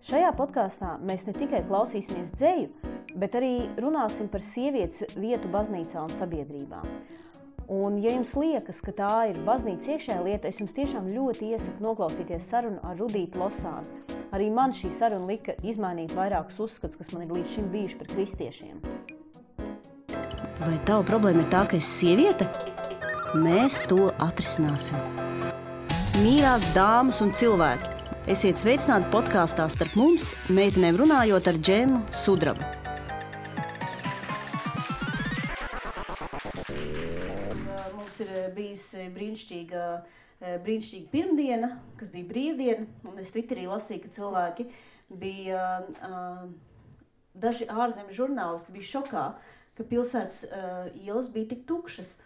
Šajā podkāstā mēs ne tikai klausīsimies dzeju, bet arī runāsim par sievietes vietu baznīcā un sabiedrībā. Un, ja jums liekas, ka tā ir baznīcas iekšējā lieta, es jums tiešām ļoti iesaku noklausīties sarunu ar Rudītu Losāni. Arī man šī saruna lika izmainīt vairākus uzskats, kas man ir līdz šim bijuši par kristiešiem. Vai tava problēma ir tā, ka esi sieviete? Mēs to atrisināsim. Mīļās dāmas un cilvēki, esiet sveicināti podkāstā starp mums, meitenēm runājot ar Džemu Sudrabu. Mums ir bijis brīnišķīga pirmdiena, kas bija brīvdiena, un es Twitterī lasīju, ka cilvēki bija, daži ārzemju žurnālisti bija šokā, ka pilsētas ielas bija tik tukšas,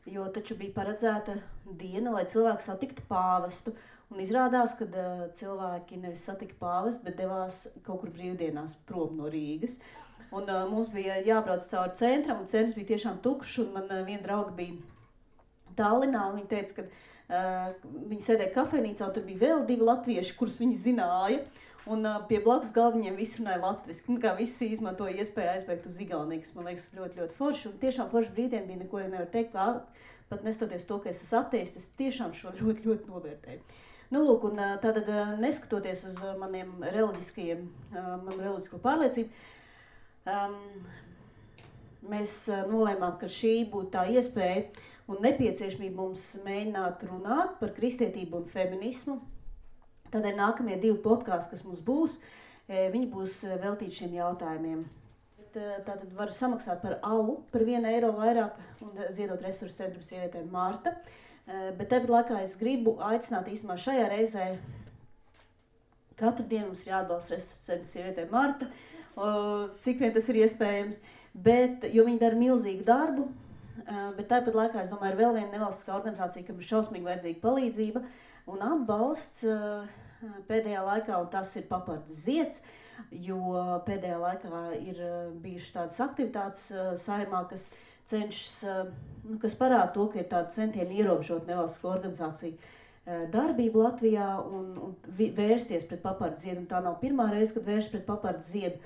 jo taču bija paredzēta diena, lai cilvēki satiktu pāvestu. Un izrādās, ka cilvēki nevis satika pāvestu, bet devās kaut kur brīvdienās prom no Rīgas. Un mums bija jābrauc cauri centram, un centrs bija tiešām tukšs, un man viena drauga bija Tallinā, un viņa teica, ka viņi sēdēja kafejnīcā, un tur bija vēl 2 latvieši, kurus viņi zināja, un pie blakus galdiņiem visi runāja latviski. Kā visi izmantoja iespēju aizbēgt uz Igauniju, kas man liekas ļoti, ļoti forši, un tiešām forši brīvdiena bija, neko nevar teikt, pat nestoties to, ka es esmu ateists, es tiešām šo ļoti, ļoti novērtēju. Nu, lūk, un tātad neskatoties uz manu reliģisko pārliecību, mēs nolēmām, ka šī būtu tā iespēja un nepieciešamība mums mēģināt runāt par kristietību un feminismu. Tādēļ nākamie 2 podkāsti, kas mums būs, viņi būs veltīti šiem jautājumiem. Tātad var samaksāt par alu par 1 eiro vairāk un ziedot resursu centrum sievietēm Marta. Bet tāpat laikā es gribu aicināt īstenībā šajā reizē katru dienu mums ir jāatbalsta resursu centrum sievietēm Marta, cik vien tas ir iespējams, jo viņi dara milzīgu darbu, bet tāpat laikā es domāju, ir vēl viena nevalstiskā organizācija, kam ir šausmīgi vajadzīga palīdzība un atbalsts pēdējā laikā, un tas ir Papardes zieds, jo pēdējā laikā ir bijušas tādas aktivitātes Saeimā, kas cenšas, kas parāda to, ka ir tāda centieni ierobežot nevalstisko organizāciju darbību Latvijā un vērsties pret Papardes ziedu. Un tā nav pirmā reize, kad vērš pret Papardes ziedu,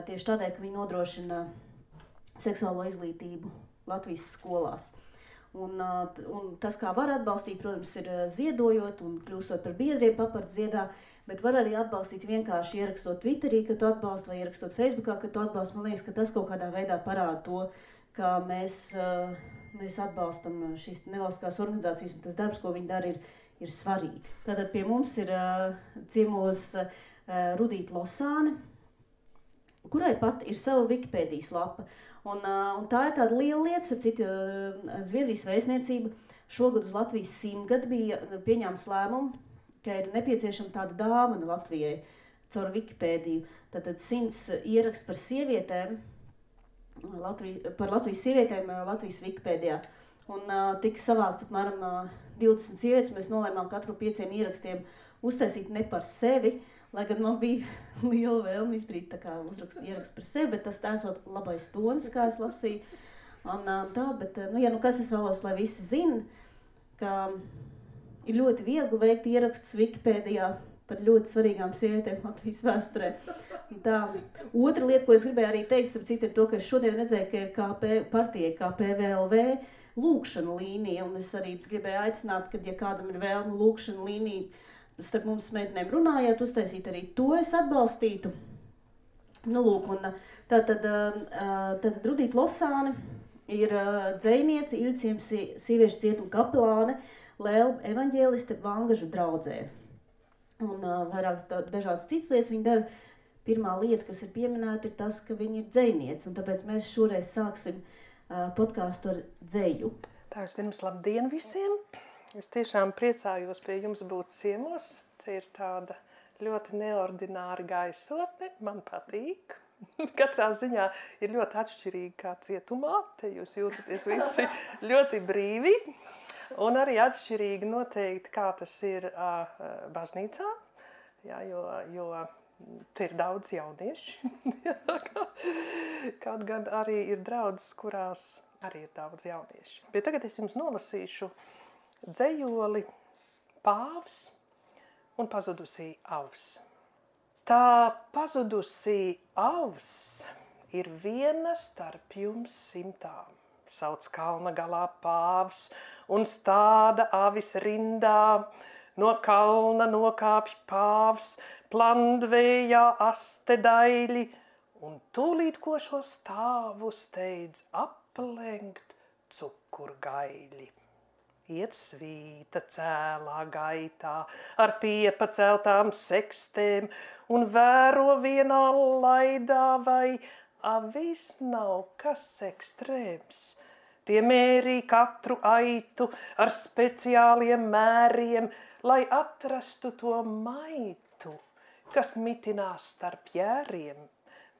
tieši tādēļ, ka viņi nodrošina seksuālo izglītību Latvijas skolās. Un tas, kā var atbalstīt, protams, ir ziedojot un kļūstot par biedriem Papardes ziedā, bet var arī atbalstīt vienkārši ierakstot Twitterī, ka tu atbalsti, vai ierakstot Facebookā, ka tu atbalsti. Man liekas, ka tas kaut kādā veidā parāda to, ka mēs atbalstam šīs nevalstiskās organizācijas, un tas darbs, ko viņi dara, ir svarīgs. Tātad pie mums ir ciemos Rudīta Losāne, kurai pat ir sava Wikipēdijas lapa. Un tā ir tāda liela lieta, starp citu, Zviedrijas vēstniecība šogad uz Latvijas 100 bija pieņēmis lēmumu, ka ir nepieciešama tāda dāvana Latvijai caur Wikipēdiju. Tātad 100 ieraksts par sievietēm, par Latvijas sievietēm Latvijas Wikipēdijā. Un tika savākts apmēram 20 sievietes, mēs nolēmām katru 5 ierakstiem uztaisīt ne par sevi, lai gan man bija liela vēlme izdarīt tā kā ierakstu par sevi, bet tas esot labais tonis, kā es lasīju. Un tā, bet, kas es vēlos, lai visi zina, ka ir ļoti viegli veikt ierakstus Wikipēdijā par ļoti svarīgām sievietēm Latvijas vēsturē. Tā. Otra lieta, ko es gribēju arī teikt, starp citu, ir to, ka es šodien redzēju, ka ir partijai kā PVLV lūkšana līnija, un es arī gribēju aicināt, ka, ja kādam ir vēlme lūkšana līnija, starp mums meitenēm runājot, uztaisīt arī to es atbalstītu. Nu, lūk, un tātad Rudīta Losāne ir dzejniece, Iļciems sieviešu cietuma kapelāne, Lēlba evaņģēliste Vangažu draudzē. Un vairākas dažādas citas lietas viņa dara. Pirmā lieta, kas ir pieminēta, ir tas, ka viņa ir dzejniece, un tāpēc mēs šoreiz sāksim podkāstu ar dzeju. Tā vispirms labdien visiem! Es tiešām priecājos pie jums būt ciemos. Te ir tāda ļoti neordināra gaisotne, man patīk. Katrā ziņā ir ļoti atšķirīgi kā cietumā, te jūs jūtaties visi ļoti brīvi. Un arī atšķirīgi noteikti, kā tas ir baznīcā, jā, jo te ir daudz jaunieši. Kaut gan arī ir draudzes, kurās arī ir daudz jaunieši. Bet tagad es jums nolasīšu dzejoli Pāvs un pazudusī avs. Tā pazudusī avs ir viena starp jums 100. Sauc kalna galā pāvs un stāda avis rindā. No kalna nokāpj pāvs, plandvējā aste daļi, un tūlīt ko šo stāvu steidz aplenkt cukurgaļi. Iet svīta cēlā gaitā ar piepaceltām sekstēm un vēro vienā laidā, vai avis nav kas ekstrēms. Tie mērī katru aitu ar speciāliem mēriem, lai atrastu to maitu, kas mitinās starp jēriem,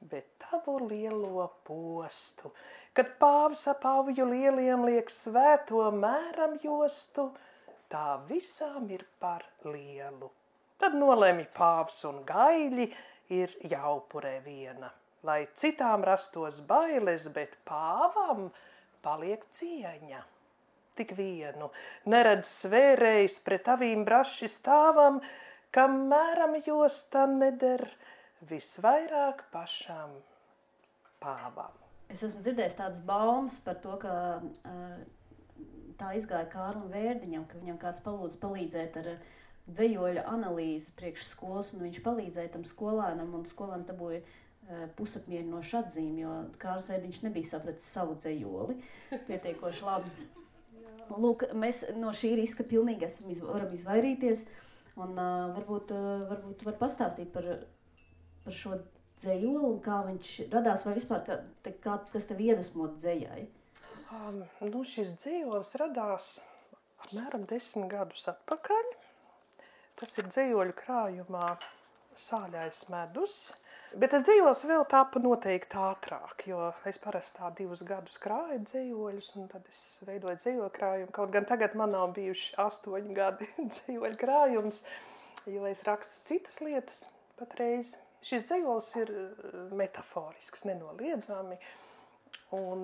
bet tavu lielo postu, kad pāvs ap avju lieliem liek svēto mēram jostu, tā visām ir par lielu. Tad nolemj pāvs un gaļi ir jāupurē viena, lai citām rastos bailes, bet pāvam paliek cieņa. Tik vienu neredz svērējs pret avīm braši stāvam, kam mēram josta neder visvairāk pašam pāvam. Es esmu dzirdējis tādas baumas par to, ka tā izgāja Kārlim Vērdiņam, ka viņam kāds palīdzēt ar dzejoļa analīzi priekš skolas, un viņš palīdzēja tam skolēnam, un skolēnam dabūja pusapmierinošu atzīmi, jo Kārlis Vērdiņš nebija sapratis savu dzejoli pietiekoši labi. Lūk, mēs no šī riska pilnīgi varam izvairīties, un varbūt var pastāstīt par šo dzejoli un kā viņš radās, vai vispār kas tev iedvesmot dzejai? Šis dzejolis radās apmēram 10 gadus atpakaļ. Tas ir dzejoļu krājumā Sāļais medus. Bet tas dzejolis vēl tāpa noteikti ātrāk, jo es parasti 2 gadus krāju dzejoļus, un tad es veidoju dzejoļu krājumu. Kaut gan tagad man nav bijuši 8 gadi dzejoļu krājums, jo es rakstu citas lietas patreiz. Šis dzejolis ir metaforisks, nenoliedzami. Un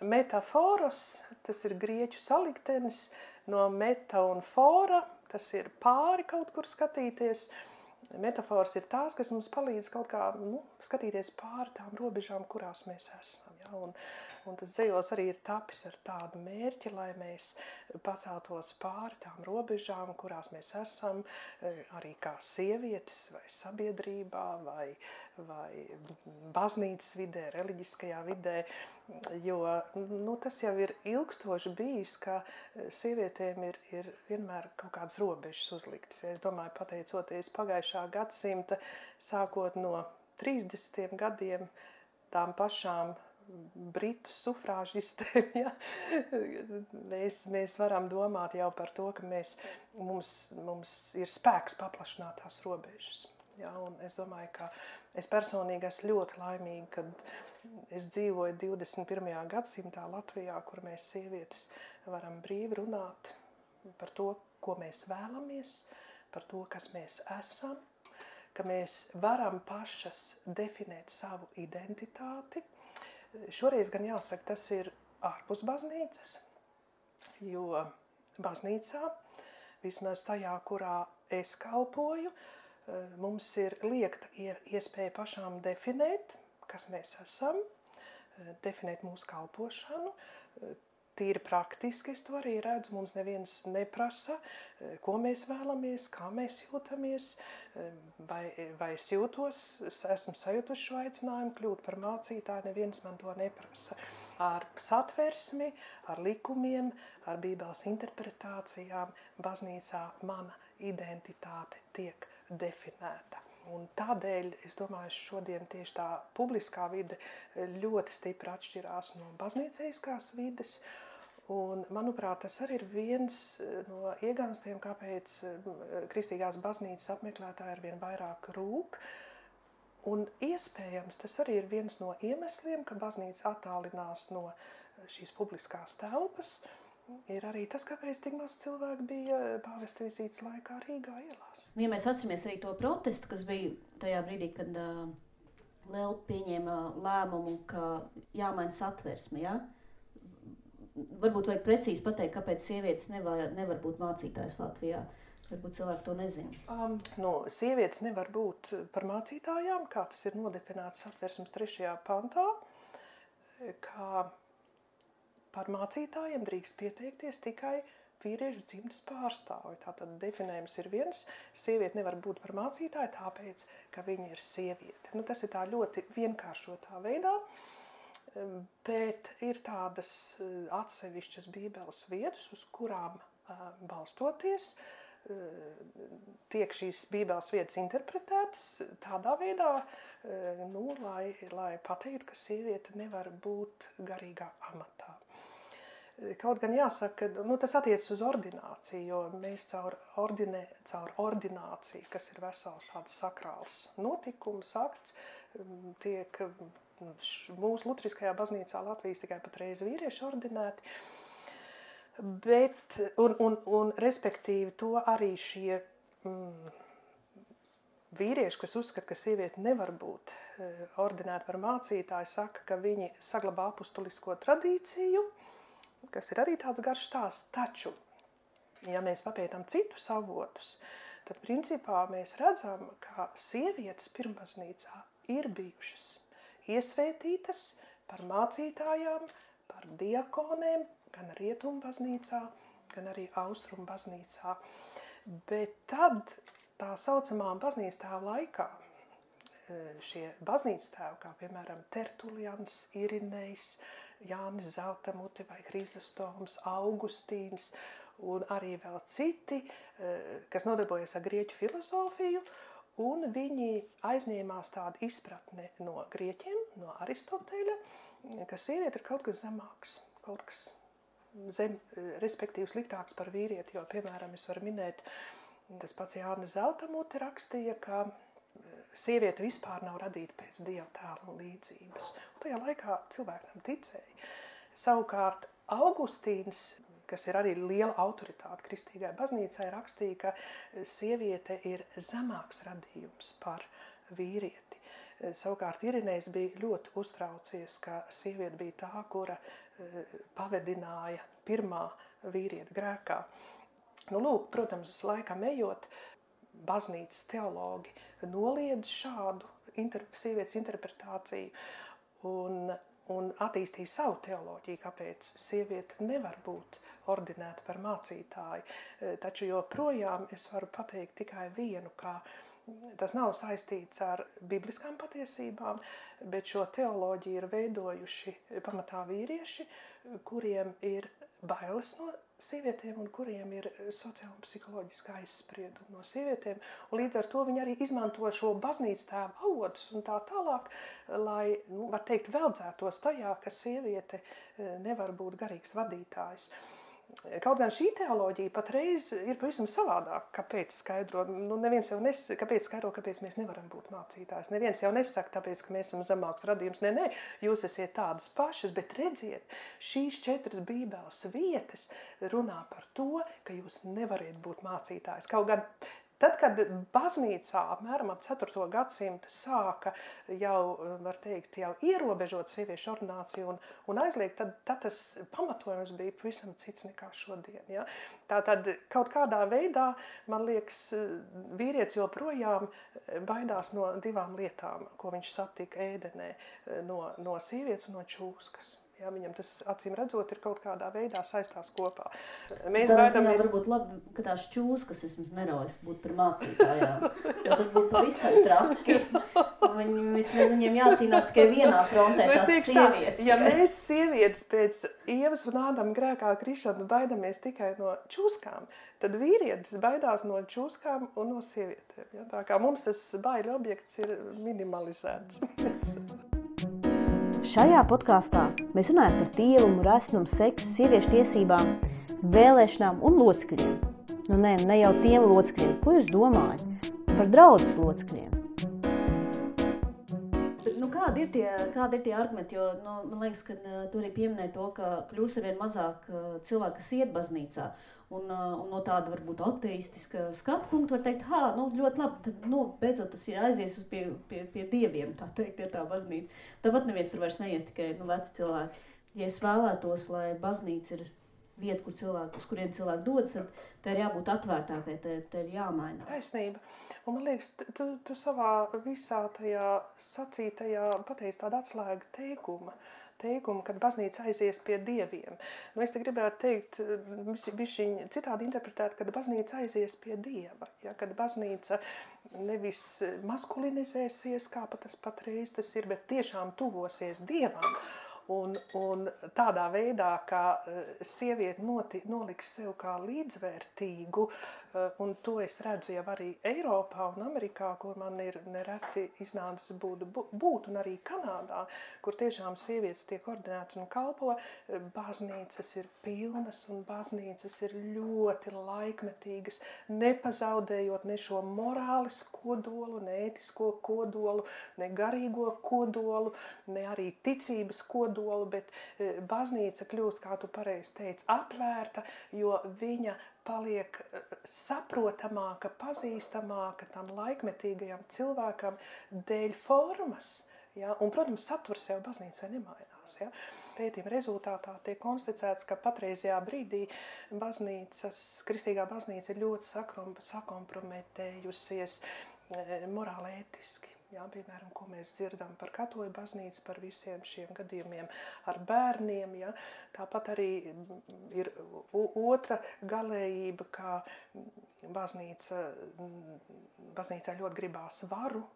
metaforos, tas ir grieķu saliktenis no meta un fora, tas ir pāri kaut kur skatīties. Metafors ir tās, kas mums palīdz kaut kā skatīties pāri tām robežām, kurās mēs esam. Ja? Un tas dzejolis arī ir tapis ar tādu mērķi, lai mēs paceltos pāri tām robežām, kurās mēs esam, arī kā sievietes vai sabiedrībā vai baznīcas vidē, reliģiskajā vidē, jo tas jau ir ilgstoši bijis, ka sievietēm ir vienmēr kaut kādas robežas uzliktas. Es domāju, pateicoties pagājušā gadsimta, sākot no 30 gadiem, tām pašām britu sufrāžistēm, ja? mēs varam domāt jau par to, ka mums ir spēks paplašināt tās robežas. Ja? Un es domāju, ka es personīgi esmu ļoti laimīga, kad es dzīvoju 21. gadsimtā Latvijā, kur mēs sievietes varam brīvi runāt par to, ko mēs vēlamies, par to, kas mēs esam, ka mēs varam pašas definēt savu identitāti. Šoreiz gan jāsaka, tas ir ārpus baznīcas, jo baznīcā, vismaz tajā, kurā es kalpoju, mums ir liekta iespēja pašām definēt, kas mēs esam, definēt mūsu kalpošanu. Tīri praktiski es to arī redzu, mums neviens neprasa, ko mēs vēlamies, kā mēs jūtamies, vai es jūtos, esmu sajutuši šo aicinājumu kļūt par mācītāju, neviens man to neprasa. Ar satversmi, ar likumiem, ar Bībeles interpretācijām baznīcā mana identitāte tiek definēta. Un tādēļ, es domāju, šodien tieši tā publiskā vide ļoti stipri atšķirās no baznīceiskās vides. Un, manuprāt, tas arī ir viens no ieganstiem, kāpēc kristīgās baznīcas apmeklētāji arvien vairāk rūk. Un iespējams, tas arī ir viens no iemesliem, ka baznīca attālinās no šīs publiskās telpas. Ir arī tas, kāpēc tik maz cilvēku bija pāvesta vizītes laikā Rīgā ielās. Ja mēs atceramies arī to protestu, kas bija tajā brīdī, kad Lelpa pieņēma lēmumu, ka jāmaina satversme, ja? Varbūt vajag precīzi pateikt, kāpēc sievietes nevar būt mācītājas Latvijā. Varbūt cilvēki to nezina. Sievietes nevar būt par mācītājām, kā tas ir nodefinēts Satversmes 3. pantā, kā par mācītājiem drīkst pieteikties tikai vīriešu dzimtes pārstāvi. Tātad definējums ir viens, sieviete nevar būt par mācītāju, tāpēc, ka viņa ir sieviete. Tas ir tā ļoti vienkāršotā veidā, bet ir tādas atsevišķas bībeles vietas, uz kurām balstoties, tiek šīs bībeles vietas interpretētas tādā veidā, lai pateiktu, ka sieviete nevar būt garīgā amatā. Kaut gan jāsaka, tas attiecas uz ordināciju, jo mēs caur ordināciju, kas ir vesels tāds sakrāls notikums, akts, tiek mūsu luteriskajā baznīcā Latvijas tikai patreiz vīrieši ordinēti, bet, un respektīvi to arī šie vīrieši, kas uzskata, ka sieviete nevar būt ordinēta par mācītāju, saka, ka viņi saglabā apustulisko tradīciju, kas ir arī tāds garš stāsts, taču, ja mēs papētam citus avotus, tad principā mēs redzam, ka sievietes pirmbaznīcā ir bijušas iesvētītas par mācītājām, par diakonēm, gan Rietumu baznīcā, gan arī Austrumu baznīcā. Bet tad tā saucamā baznīcas tēva laikā šie baznīcas tēvi, kā piemēram Tertulians, Irinejs, Jānis Zeltamute vai Hrizostoms, Augustīns un arī vēl citi, kas nodarbojas ar grieķu filozofiju, un viņi aizņēmās tādu izpratni no grieķiem, no Aristoteļa, ka sieviete ir kaut kas zemāks, kaut kas respektīvi sliktāks par vīrieti, jo, piemēram, es varu minēt, tas pats Jānis Zeltamute rakstīja, ka sieviete vispār nav radīta pēc Dieva tēla un līdzības. Un tajā laikā cilvēki tam ticēja. Savukārt Augustīns, kas ir arī liela autoritāte kristīgai baznīcai, rakstīja, ka sieviete ir zemāks radījums par vīrieti. Savukārt Irinejs bija ļoti uztraucies, ka sieviete bija tā, kura pavedināja pirmā vīrieta grēkā. Lūk, protams, laikam ejot, baznīcas teologi noliedz šādu sievietes interpretāciju un attīstīja savu teoloģiju, kāpēc sieviete nevar būt ordinēta par mācītāju. Taču joprojām es varu pateikt tikai vienu, ka tas nav saistīts ar bibliskām patiesībām, bet šo teoloģiju ir veidojuši pamatā vīrieši, kuriem ir bailes no sievietēm un kuriem ir sociāli un psiholoģiski aizspriedumi no sievietēm. Un līdz ar to viņi arī izmanto šo baznīcas tēva avotus un tā tālāk, lai, var teikt, veldzētos tajā, ka sieviete nevar būt garīgs vadītājs. Kaut gan šī teoloģija patreiz ir pavisam savādāk, kāpēc skaidro. Neviens jau kāpēc skaidro, kāpēc mēs nevaram būt mācītājs. Neviens jau nesaka, tāpēc, ka mēs esam zemāks radījums. Nē, jūs esiet tādas pašas, bet redziet, šīs 4 bībeles vietas runā par to, ka jūs nevariet būt mācītājs. Kaut gan tad, kad baznīcā apmēram ap 4. gadsimtu sāka jau, var teikt, jau ierobežot sieviešu ordināciju un aizliegt, tad tas pamatojums bija pavisam cits nekā šodien. Ja? Tātad kaut kādā veidā, man liekas, vīrietis joprojām baidās no 2 lietām, ko viņš satika ēdenē, no sievietes un no čūskas. Ja, viņam tas, acīm redzot, ir kaut kādā veidā saistās kopā. Mēs baidamies... Varbūt labi, ka tās čūskas vismaz neraujas būt par mācītājām. Jo tad būtu pavisam traki. Viņiem jācīnās tikai vienā frontē, tās sievietes. Ja mēs sievietes pēc Ievas un Ādama grēkā krišanas baidamies tikai no čūskām, tad vīrietis baidās no čūskām un no sievietēm. Ja? Tā kā mums tas baiļu objekts ir minimalizēts. Šajā podkāstā mēs runājam par tīrumu, resnumu, seksu, sieviešu tiesībām, vēlēšanām un locekļiem. Ne jau tiem locekļiem, ko jūs domājat? Par draudzes locekļiem. Kādi ir tie argumenti? Jo, man liekas, ka tu arī pieminēji to, ka kļūs arvien mazāk cilvēki, kas iet baznīcā. Un no tāda varbūt ateistiska skatu punktu var teikt, ļoti labi, tad beidzot tas ir aizies pie dieviem, tā teikt, ir tā baznīca. Tāpat neviens tur vairs neies, tikai veci cilvēki. Ja es vēlētos, lai baznīca ir vieta, uz kuriem cilvēki dodas, tad tā ir jābūt atvērtākai, tā ir jāmainās. Taisnība. Un man liekas, tu savā visā tajā sacītajā pateici tādu atslēgu teikumu, kad baznīca aizies pie dieviem. Nu, es te gribētu teikt, bišķiņ citādi interpretēt, kad baznīca aizies pie dieva, ja, kad baznīca nevis maskulinizēsies, kā tas patreiz tas ir, bet tiešām tuvosies dievam. Un tādā veidā, kā sieviete noliks sev kā līdzvērtīgu, un to es redzu jau arī Eiropā un Amerikā, kur man ir nereti iznācis būt, un arī Kanādā, kur tiešām sievietes tiek ordinētas un kalpo, baznīcas ir pilnas un baznīcas ir ļoti laikmetīgas, nepazaudējot ne šo morāles kodolu, ne ētisko kodolu, ne garīgo kodolu, ne arī ticības kodolu, bet baznīca kļūst, kā tu pareizi teici, atvērta, jo viņa paliek saprotamāka, pazīstamāka tam laikmetīgajam cilvēkam dēļ formas. Ja? Un, protams, saturs jau baznīcai nemainās. Ja? Pētījuma rezultātā tiek konstatēts, ka patreizajā brīdī kristīgā baznīca ir ļoti sakomprometējusies morāli ētiski. Jā, piemēram, ko mēs dzirdam par katoļu baznīcu, par visiem šiem gadījumiem ar bērniem. Ja. Tāpat arī ir otra galējība, kā baznīcā ļoti gribās varu,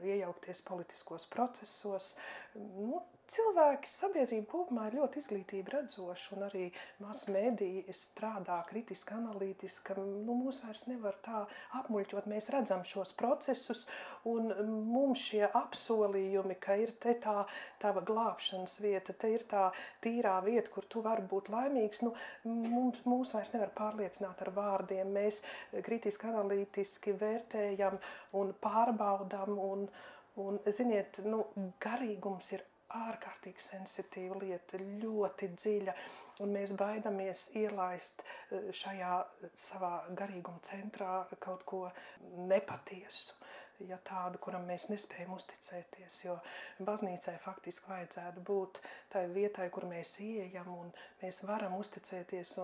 iejaukties politiskos procesos. Nu, cilvēki, sabiedrība kopumā ir ļoti izglītība redzoša, un arī masmediji strādā kritiski, analītiski. Nu, mūs vairs nevar tā apmuļķot, mēs redzam šos procesus, un mums šie apsolījumi, ka ir te tā tava glābšanas vieta, te ir tā tīrā vieta, kur tu vari būt laimīgs, nu, mūs vairs nevar pārliecināt ar vārdiem. Mēs kritiski, analītiski vērtējam un pārbaudam, un ziniet, nu, garīgums ir ārkārtīgi sensitīva lieta, ļoti dziļa, un mēs baidamies ielaist šajā savā garīguma centrā kaut ko nepatiesu, ja tādu, kuram mēs nespējam uzticēties, jo baznīcai faktiski vajadzētu būt tai vietai, kur mēs ieejam un mēs varam uzticēties,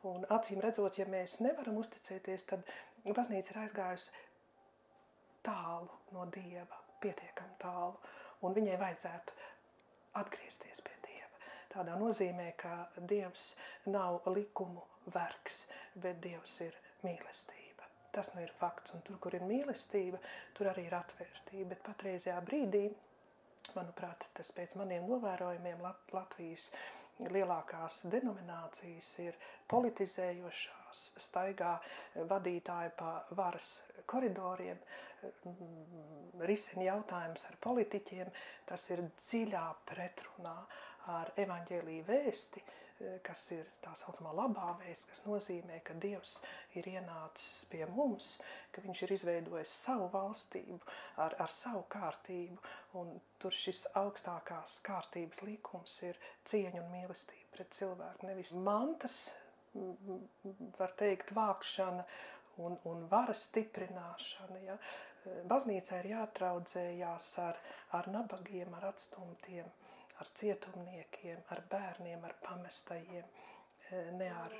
un acīm redzot, ja mēs nevaram uzticēties, tad baznīca ir aizgājusi tālu no Dieva, pietiekami tālu, un viņai vajadzētu atgriezties pie Dieva. Tādā nozīmē, ka Dievs nav likumu vergs, bet Dievs ir mīlestība. Tas nu ir fakts, un tur, kur ir mīlestība, tur arī ir atvērtība, bet patreizajā brīdī, manuprāt, tas pēc maniem novērojumiem Latvijas lielākās denominācijas ir politizējošās, staigā vadītāji pa varas koridoriem, risina jautājums ar politiķiem, tas ir dziļā pretrunā ar evaņģēliju vēsti, kas ir tā saucamā labā vēsts, kas nozīmē, ka Dievs ir ienācis pie mums, ka viņš ir izveidojis savu valstību ar savu kārtību, un tur šis augstākās kārtības likums ir cieņa un mīlestība pret cilvēku. Nevis mantas, var teikt, vākšana un varas stiprināšana. Ja? Baznīcā ir jātraudzējās ar nabagiem, ar atstumtiem, ar cietumniekiem, ar bērniem, ar pamestajiem, ne ar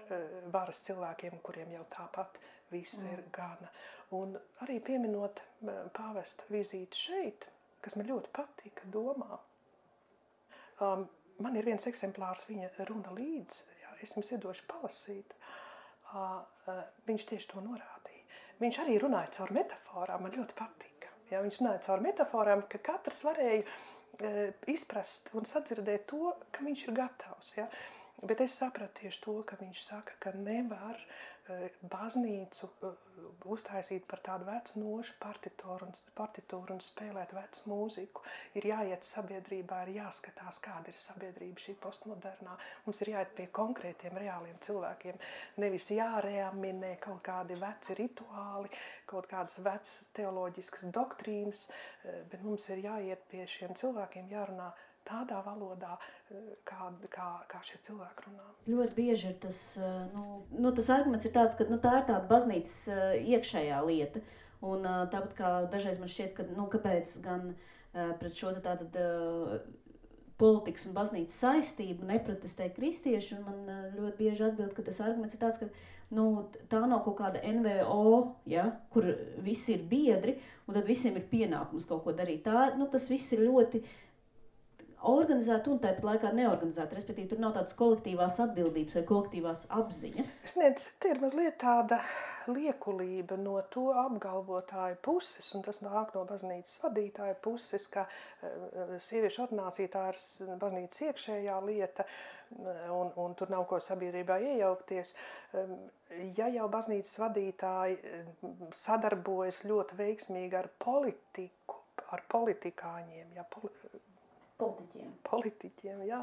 varas cilvēkiem, kuriem jau tāpat viss ir gana. Un arī pieminot pāvesta vizīti šeit, kas man ļoti patika domā. Man ir viens eksemplārs viņa runa līdz, jā, es jums iedošu palasīt. Viņš tieši to norādīja. Viņš arī runāja caur metaforām, man ļoti patika. Jā, viņš runāja caur metaforām, ka katrs varēja izprast un sadzirdēt to, ka viņš ir gatavs. Ja? Bet es sapratu tieši to, ka viņš saka, ka nevar baznīcu uztaisīt par tādu vecu nošu partitūru un spēlēt vecu mūziku. Ir jāiet sabiedrībā, ir jāskatās, kāda ir sabiedrība šī postmodernā. Mums ir jāiet pie konkrētiem, reāliem cilvēkiem. Nevis jāreaminē kaut kādi veci rituāli, kaut kādas vecas teoloģiskas doktrīnas, bet mums ir jāiet pie šiem cilvēkiem, jārunā tādā valodā, kā šie cilvēki runā. Ļoti bieži ir tas, tas arguments ir tāds, ka tā ir tāda baznīcas iekšējā lieta. Un tāpat kā dažreiz man šķiet, ka kāpēc gan pret šo tātad politikas un baznīcas saistību, neprotestē kristieši, un man ļoti bieži atbild, ka tas arguments ir tāds, ka tā nav kaut kāda NVO, ja, kur visi ir biedri, un tad visiem ir pienākums kaut ko darīt. Tas viss ir ļoti organizēti un tāpat laikā neorganizēti, respektīvi tur nav tādas kolektīvās atbildības vai kolektīvās apziņas. Te ir mazliet tāda liekulība no to apgalvotāju puses, un tas nāk no baznīcas vadītāja puses, ka sieviešu ordinācija tā ir baznīcas iekšējā lieta, un tur nav ko sabiedrībā iejaukties. Ja jau baznīcas vadītāji sadarbojas ļoti veiksmīgi ar politiku, ar politikāņiem, Politiķiem, jā.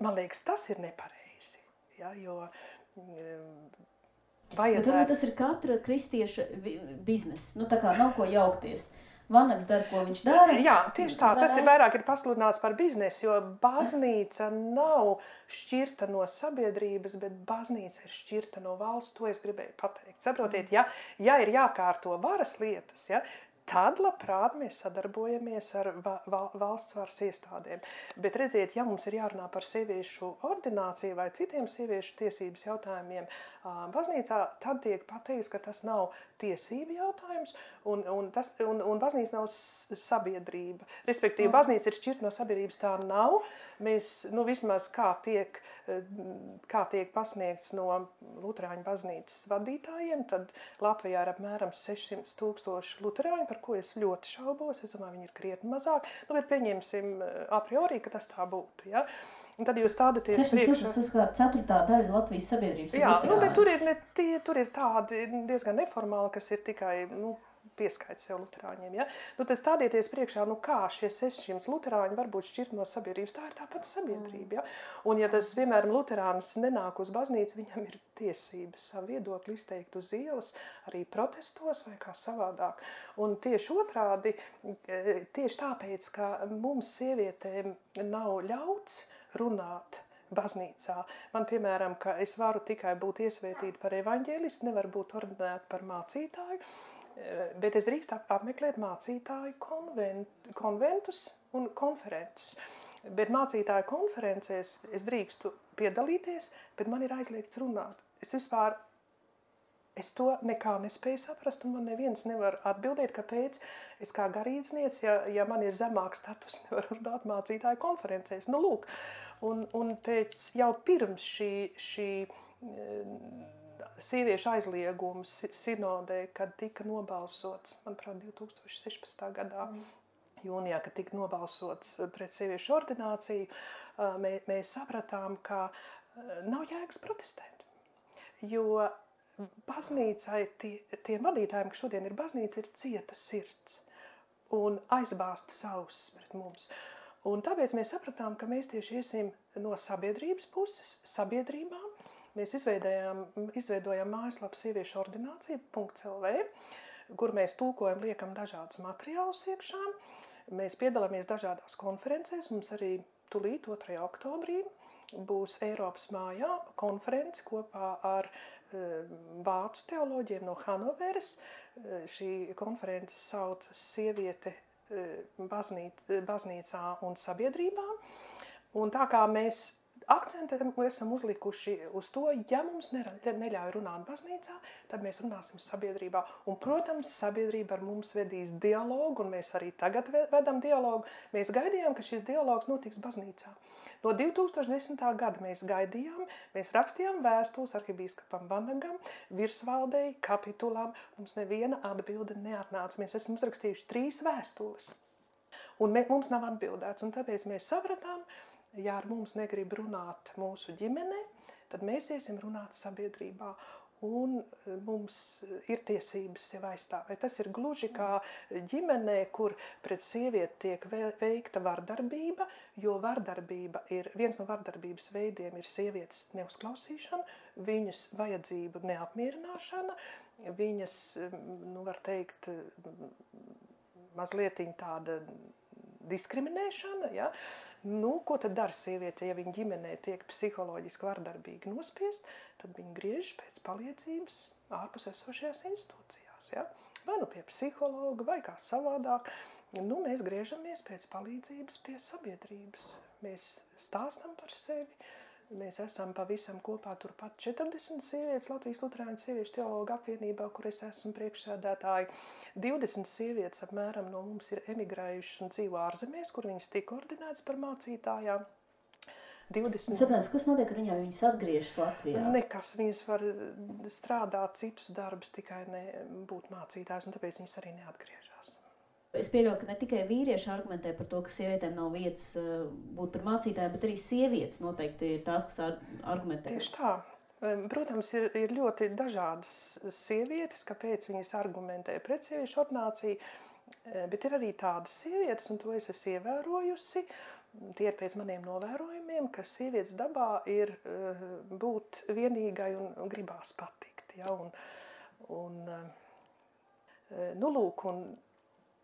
Man liekas, tas ir nepareizi, jā, jo vajadzētu... Bet tas ir katra kristieša bizness, tā kā nav ko jaukties. Vanags dara, ko viņš dara. Jā, tieši tā, tas ir vairāk pasludināts par biznesu, jo baznīca nav šķirta no sabiedrības, bet baznīca ir šķirta no valsts, to es gribēju pateikt. Saprotiet, ja ir jākārto varas lietas, ja, tad labprāt mēs sadarbojamies ar valsts varas iestādēm. Bet redziet, ja mums ir jārunā par sieviešu ordināciju vai citiem sieviešu tiesības jautājumiem baznīcā, tad tiek pateikts, ka tas nav tiesību jautājums un baznīca nav sabiedrība. Respektīvi, baznīca ir šķirta no sabiedrības, tā nav. Mēs, vismaz kā tiek pasniegts no luterāņu baznīcas vadītājiem, tad Latvijā ir apmēram 600,000 luterāņu, par ko es ļoti šaubos. Es domāju, viņi ir krietni mazāk, bet pieņemsim a priori, ka tas tā būtu, ja? Un tad jūs stādaties priekšā. Tas kā 4. daļa Latvijas sabiedrības. Jā, bet tur ir tādi diezgan neformāli, kas ir tikai, pieskaita sev luterāņiem, ja? Tad stādieties priekšā, kā šie 600 luterāņi var būt šķirt no sabiedrības, tā ir tāpat sabiedrība, ja? Un ja tas, piemēram, luterānis nenāk uz baznīcu, viņam ir tiesības savu viedokli izteikt uz ielas, arī protestos vai kā savādāk. Un tieši otrādi, tieši tāpēc, ka mums sievietēm nav ļauts runāt baznīcā. Man, piemēram, ka es varu tikai būt iesvētīta par evaņģēlistu, nevaru būt ordinēta par mācītāju, bet es drīkst apmeklēt mācītāju konventus un konferences. Bet mācītāju konferencēs es drīkstu piedalīties, bet man ir aizliegts runāt. Es to nekā nespēju saprast, un man neviens nevar atbildēt, kāpēc es kā garīdzniece, ja man ir zemāks status, nevaru runāt mācītāju konferencēs. Lūk, un jau pirms šī sieviešu aizliegums sinodē, kad tika nobalsots, manuprāt, 2016. gadā, jūnijā, kad tika nobalsots pret sieviešu ordināciju, mēs sapratām, ka nav jēgas protestēt, jo baznīcai, tiem vadītājiem, kas šodien ir baznīca, ir cieta sirds un aizbāzta ausis pret mums. Un tāpēc mēs sapratām, ka mēs tieši iesim no sabiedrības puses, sabiedrībām. Mēs izveidojam mājaslapu sieviešu ordinācija.lv, kur mēs tulkojam, liekam dažādas materiālus iekšā. Mēs piedalāmies dažādās konferencēs, mums arī tūlīt 2. oktobrī būs Eiropas mājā konference kopā ar vācu teoloģiem no Hanoveras. Šī konference saucas Sieviete baznīcā un sabiedrībā. Un tā kā mēs akcentu esam uzlikuši uz to, ja mums neļauj runāt baznīcā, tad mēs runāsim sabiedrībā. Un, protams, sabiedrība ar mums vedīs dialogu, un mēs arī tagad vedam dialogu. Mēs gaidījām, ka šis dialogs notiks baznīcā. No 2010. gada mēs gaidījām, mēs rakstījām vēstules arhibīskapam Vanagam, virsvaldei, kapitulām. Mums neviena atbilde neatnāca. Mēs esam uzrakstījuši 3 vēstules. Un mums nav atbildēts. Un tāpēc mēs sapratām, ja ar mums negrib runāt mūsu ģimene, tad mēs iesim runāt sabiedrībā. Un mums ir tiesības sev aizstāvēt. Tas ir gluži kā ģimenē, kur pret sievieti tiek veikta vardarbība, jo vardarbība viens no vardarbības veidiem ir sievietes neuzklausīšana, viņas vajadzību neapmierināšana, viņas, var teikt, mazliet tāda diskriminēšana, ja? Ko tad dara sieviete, ja viņa ģimenē tiek psiholoģiski vardarbīgi nospiest, tad viņa griežas pēc palīdzības ārpus esošajās institūcijās, ja? Vai pie psihologa, vai kā savādāk. mēs griežamies pēc palīdzības pie sabiedrības. Mēs stāstam par sevi. Mēs esam pavisam kopā turpat 40 sievietes Latvijas Luterāņu sieviešu teologu apvienībā, kur es esmu priekšsēdētāji. 20 sievietes apmēram no mums ir emigrējušas un dzīvo ārzemēs, kur viņas tika ordinētas par mācītājām. 20... Saprāt, kas notiek ar viņām, viņas atgriežas Latvijā? Nekas, viņas var strādāt citus darbus, tikai ne būt mācītājs, un tāpēc viņas arī neatgriežas. Es pieļauju, ka ne tikai vīrieši argumentē par to, ka sievietēm nav vietas būt par mācītājiem, bet arī sievietes noteikti ir tās, kas argumentē. Tieši tā. Protams, ir ļoti dažādas sievietes, kāpēc viņas argumentē pret sieviešu ordināciju, bet ir arī tādas sievietes, un to es esmu ievērojusi, tie ir pēc maniem novērojumiem, ka sievietes dabā ir būt vienīgai un gribās patikt. Ja?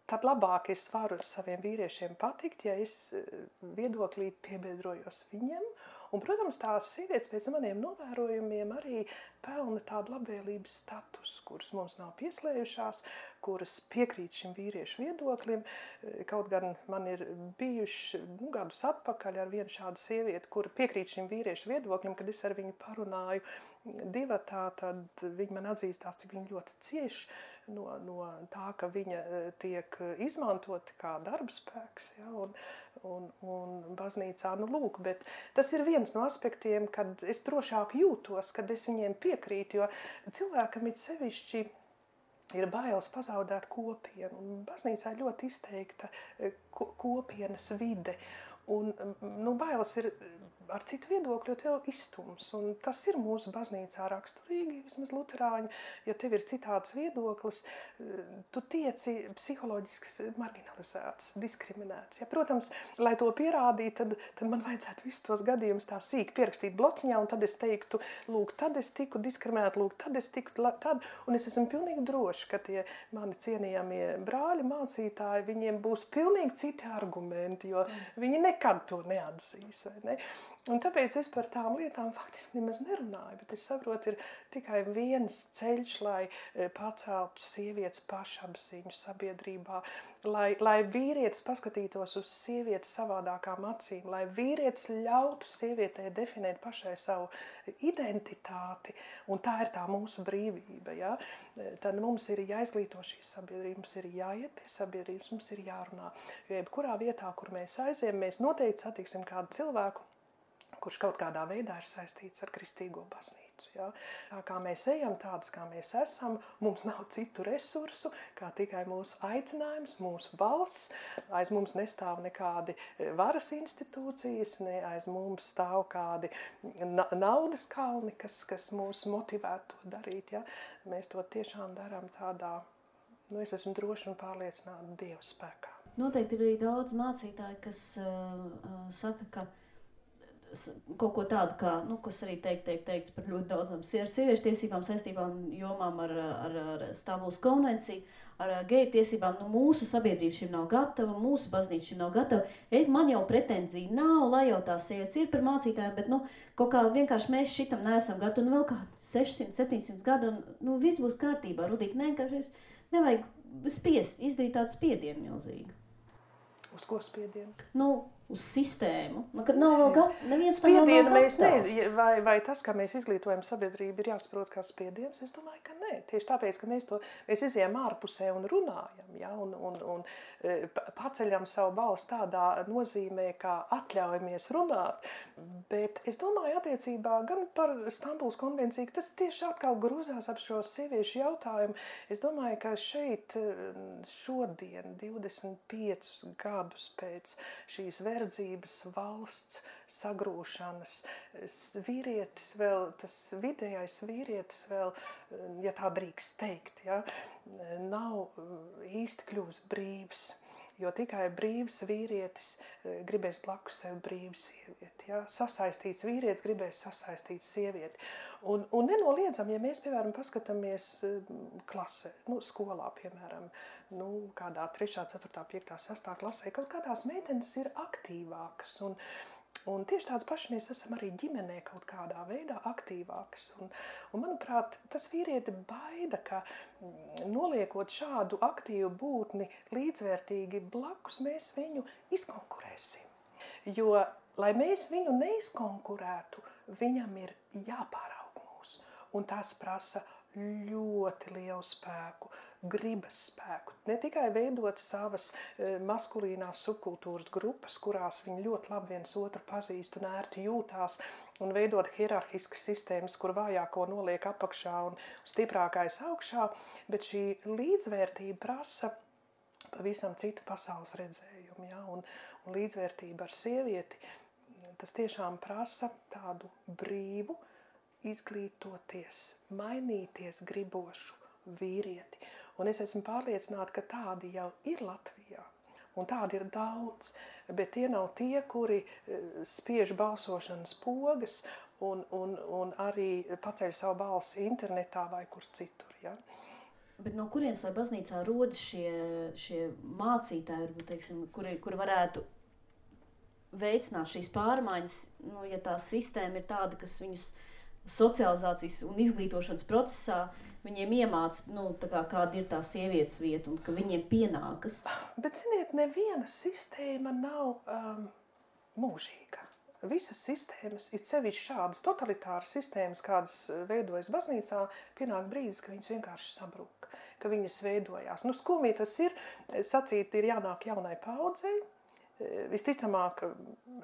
Tad labāk es varu saviem vīriešiem patikt, ja es viedoklī piebiedrojos viņiem. Un, protams, tās sievietes pēc maniem novērojumiem arī pelna tādu labvēlības statusu, kuras mums nav pieslējušās, kuras piekrīt šim vīriešu viedoklim. Kaut gan man ir bijuši gadus atpakaļ ar vienu šādu sievieti, kura piekrīt šim vīriešu viedoklim, kad es ar viņu parunāju divatā, tad viņa man atzīstās, cik viņa ļoti cieši no tā, ka viņa tiek izmantota kā darbspēks, ja, un baznīcā, lūk, bet tas ir viens no aspektiem, kad es drošāk jūtos, kad es viņiem piekrītu, jo cilvēkam it sevišķi ir bailes pazaudēt kopienu, un baznīcā ļoti izteikta kopienas vide, un bailes ir ar citu viedokļu, jo tev izstums, un tas ir mūsu baznīcā raksturīgi, vismaz luterāņu, ja tev ir citāds viedoklis, tu tieci psiholoģiski marginalizēts, diskriminēts. Ja, protams, lai to pierādītu, tad man vajadzētu visus tos gadījumus tā sīk pierakstīt blociņā, un tad es teiktu, lūk, tad es tiku diskriminēta, lūk, tad es tiku tad, un es esmu pilnīgi droši, ka tie mani cienījamie brāļi, mācītāji, viņiem būs pilnīgi citi argumenti, jo viņi nekad to neatzīs, vai ne? Un tāpēc es par tām lietām faktiski nemaz nerunāju, bet es saprotu, ir tikai viens ceļš, lai paceltu sievietes pašapziņu sabiedrībā, lai vīrietis paskatītos uz sievietes savādākām acīm, lai vīrietis ļautu sievietei definēt pašai savu identitāti, un tā ir tā mūsu brīvība. Ja? Tad mums ir jāizglīto šīs sabiedrības, mums ir jāiet pie sabiedrības, mums ir jārunā. Jo jebkurā vietā, kur mēs aiziem, mēs noteikti satiksim kādu cilvēku, kurš kaut kādā veidā ir saistīts ar kristīgo baznīcu. Ja? Tā kā mēs ejam, tādas kā mēs esam, mums nav citu resursu, kā tikai mūsu aicinājums, mūsu balss. Aiz mums nestāv nekādi varas institūcijas, ne aiz mums stāv kādi naudas kalni, kas mūs motivētu to darīt. Ja? Mēs to tiešām darām tādā, es esmu droši un pārliecināta Dieva spēkā. Noteikti ir arī daudz mācītāji, kas saka, ka kaut ko tādu, kā, kas arī teikts par ļoti daudzām sieviešu tiesībām, saistībām, jomām ar Stambulas konvenciju, ar geju tiesībām. Mūsu sabiedrība šim nav gatava, mūsu baznīca šim nav gatava. Man jau pretenzija nav, lai jau tās sievietes ir par mācītājiem, bet kaut kā vienkārši mēs šitam neesam gatavi. Un vēl kā 600, 700 gadu, un viss būs kārtībā. Rudīt, nevajag spiest, izdarīt tādu spiedienu milzīgu. Uz ko spiedienu? Uz sistēmu. Kad nav vēl neviens spiedienu mēs vai tas, ka mēs izglītojam sabiedrību, ir jāsaprot kā spiediens? Es domāju, ka nē. Tieši tāpēc, ka mēs izejam ārpusē un runājam, ja, un paceļam savu balsi tādā nozīmē, kā atļaujamies runāt. Bet es domāju attiecībā gan par Stambulas konvenciju, tas tieši atkal grūzās ap šo sieviešu jautājumu. Es domāju, ka šeit šodien, 25 gadus pēc šīs verdzības valsts sagrūšanas, vīrietis vēl, tas vidējais vīrietis vēl, ja tā drīkst teikt, ja, nav īsti kļūst brīvs. Jo tikai brīvs vīrietis gribēs blakus sev brīvu sievieti. Ja? Sasaistīts vīrietis gribēs sasaistīt sievieti. Un nenoliedzam, ja mēs, piemēram, paskatāmies klasē, skolā, piemēram, kādā 3., 4., 5., 6. klasē, kaut kādās meitenes ir aktīvākas. Un tieši tāds paši mēs esam arī ģimenē kaut kādā veidā aktīvāks. Un manuprāt, tas vīrieti baida, ka noliekot šādu aktīvu būtni līdzvērtīgi blakus, mēs viņu izkonkurēsim. Jo, lai mēs viņu neizkonkurētu, viņam ir jāpāraug mūs. Un tas prasa ļoti lielu spēku, gribas spēku. Ne tikai veidot savas maskulīnās subkultūras grupas, kurās viņi ļoti labi viens otru pazīst un ērti jūtās, un veidot hierarhiskas sistēmas, kur vājāko noliek apakšā un stiprākais augšā, bet šī līdzvērtība prasa pavisam citu pasaules redzējumu. Ja? Un līdzvērtība ar sievieti, tas tiešām prasa tādu brīvu, izglītoties, mainīties gribošu vīrieti. Un es esmu pārliecināta, ka tādi jau ir Latvijā. Un tādi ir daudz, bet tie nav tie, kuri spiež balsošanas pogas un arī paceļ savu balsi internetā vai kur citur. Ja? Bet no kurienes, lai baznīcā rodas šie mācītāji, teiksim, kuri varētu veicināt šīs pārmaiņas, ja tā sistēma ir tāda, kas viņus socializācijas un izglītošanas procesā viņiem iemāca, kāda ir tā sievietes vieta un ka viņiem pienākas. Bet, ziniet, neviena sistēma nav mūžīga. Visas sistēmas, it sevišķi šādas totalitāras sistēmas, kādas veidojas baznīcā, pienāk brīdis, ka viņas vienkārši sabrūk, ka viņas veidojās. Skumji tas ir, sacīt, ir jānāk jaunai paudzei. Visticamāk,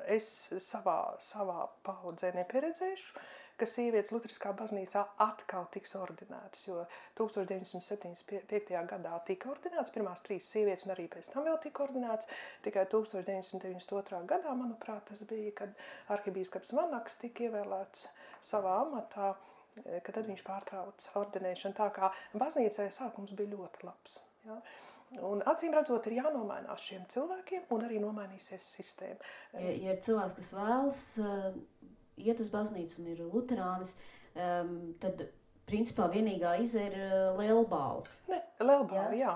es savā paudzē nepieredzēšu, ka sievietes Luteriskā baznīcā atkal tiks ordinētas, jo 1975. gadā tika ordinētas pirmās 3 sievietes un arī pēc tam vēl tika ordinētas. Tikai 1992. gadā, manuprāt, tas bija, kad arhibīskaps Vanaks tika ievēlēts savā amatā, ka tad viņš pārtrauca ordinēšanu. Tā kā baznīcai sākums bija ļoti labs. Ja? Un acīm redzot, ir jānomainās šiem cilvēkiem un arī nomainīsies sistēma. Ja ir cilvēks, kas vēlas iet uz baznīcu un ir luterānis, tad principā vienīgā izēja ir lielbāla. Ne, lielbāla, jā.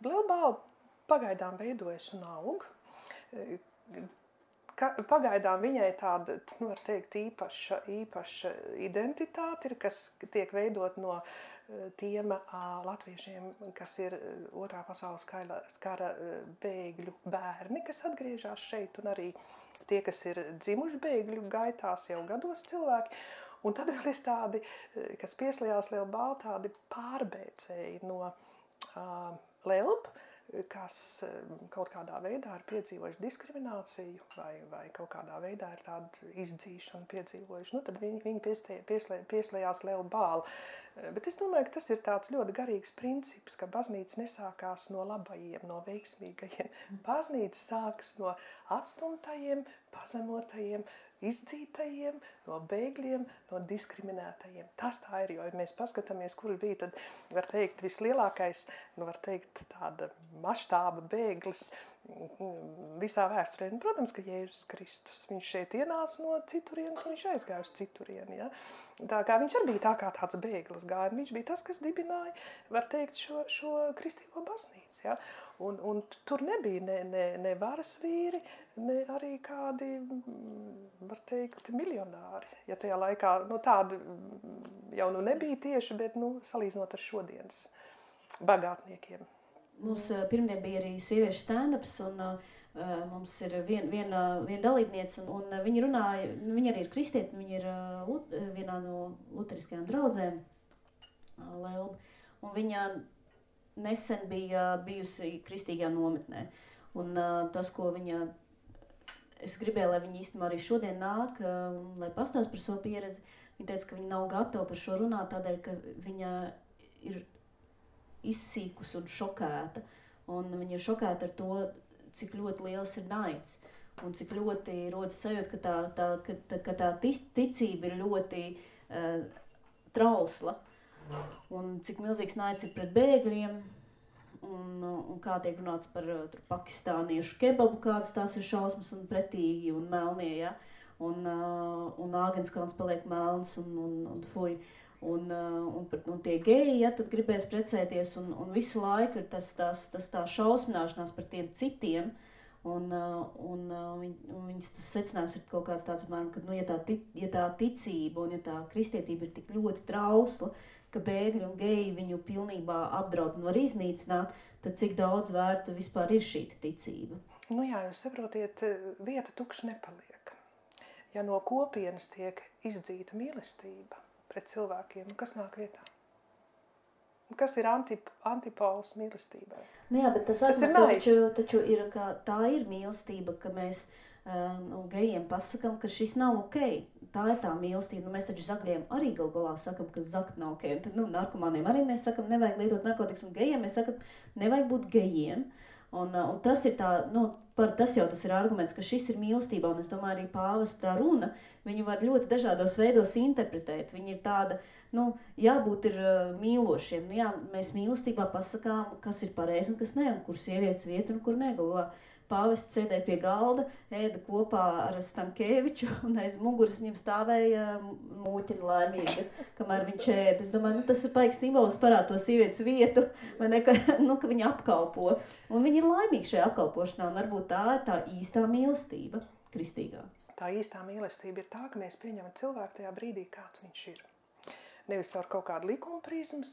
Lielbāla pagaidām veidojas un aug. Pagaidām viņai tāda, var teikt, īpaša identitāte ir, kas tiek veidot no tiem latviešiem, kas ir Otrā pasaules kara bēgļu bērni, kas atgriežas šeit, un arī tie, kas ir dzimuši bēgļu gaitās jau gados cilvēki. Un tad vēl ir tādi, kas pieslējās lielbāla, tādi pārbēcēji no Lelb, kas kaut kādā veidā ir piedzīvojuši diskrimināciju vai kaut kādā veidā ir tādu izdzīšanu piedzīvojuši. Tad viņi pieslējās lielbāla. Bet es domāju, ka tas ir tāds ļoti garīgs princips, ka baznīca nesākās no labajiem, no veiksmīgajiem. Baznīca sākas no atstumtajiem, pazemotajiem, izdzītajiem, no bēgļiem, no diskriminētajiem. Tas tā ir, jo ja mēs paskatāmies, kur bija tad, var teikt, vislielākais, var teikt, tāda maštāba bēglis visā vēsturē. Protams, ka Jēzus Kristus, viņš šeit ienāca no citurienes un viņš aizgāja uz citurieni. Ja? Tā kā viņš arī bija tā kā tāds bēglis gāja, viņš bija tas, kas dibināja, var teikt, šo kristīgo baznīcu. Ja? Un tur nebija ne varas vīri, ne arī kādi, var teikt, miljonāri. Ja tajā laikā, tādi jau nebija tieši, bet, salīdzinot ar šodienas bagātniekiem. Mums pirmdien bija arī sieviešu stand-ups, un mums ir viena dalībniece, un viņa runāja, viņa arī ir kristieti, viņa ir vienā no luteriskajām draudzēm, Lelba, un viņa nesen bija bijusi kristīgajā nometnē. Un tas, ko viņa, es gribēju, lai viņa īstenībā arī šodien nāk, lai pastāst par savu pieredzi, viņa teica, ka viņa nav gatava par šo runāt, tādēļ, ka viņa ir izsīkus un šokēta. Un viņa ir šokēta ar to, cik ļoti liels ir naids. Un cik ļoti rodas sajūta, ka tā ticība ir ļoti trausla. Un cik milzīgs naids ir pret bēgļiem. Un kā tiek runāts par pakistāniešu kebabu, kādas tās ir šausmas un pretīgi un melnie. Ja? Un Āgenskalns paliek melns un fuj. Un tie geji, ja, tad gribēs precēties, un visu laiku ir tas tā šausmināšanās par tiem citiem, Un viņas tas secinājums ir kaut kāds tāds, ka, ja tā ticība un ja tā kristietība ir tik ļoti trausla, ka bēgļi un geji viņu pilnībā apdraud un var iznīcināt, tad cik daudz vērta vispār ir šī ticība? Nu jā, jūs saprotiet, vieta tukša nepaliek. Ja no kopienas tiek izdzīta mīlestība pret cilvēkiem, kas nāk vietā? Kas ir antipols mīlestībai? Nu jā, bet tas taču ir, ka tā ir mīlestība, ka mēs gejiem pasakam, ka šis nav ok. Tā ir tā mīlestība. Nu, mēs taču zakļiem arī galā sakam, ka zakt nav ok. Un tad, narkomāniem arī mēs sakam, nevajag lietot narkotikas, un gejiem mēs sakam, nevajag būt gejiem. Un tas ir tā, tas ir arguments, ka šis ir mīlestība, un es domāju, arī pāvesta runa, viņu var ļoti dažādos veidos interpretēt. Viņa ir tāda, jābūt ir mīlošiem. Jā, mēs mīlestībā pasakām, kas ir pareizi un kas ne, un kur sievietes vieta un kur negalvā. Pāvests sēdēja pie galda, ēda kopā ar Stankēviču, un aiz muguras viņam stāvēja mūķina laimīga, kamēr viņš ēda. Es domāju, tas ir paiks simbols parāda to sievietes vietu, vai ne, ka viņa apkalpo. Un viņi ir laimīgi šajā apkalpošanā, un varbūt tā ir tā īstā mīlestība, kristīgā. Tā īstā mīlestība ir tā, ka mēs pieņemam cilvēku tajā brīdī, kāds viņš ir. Nevis caur kaut kādu likuma prizmas,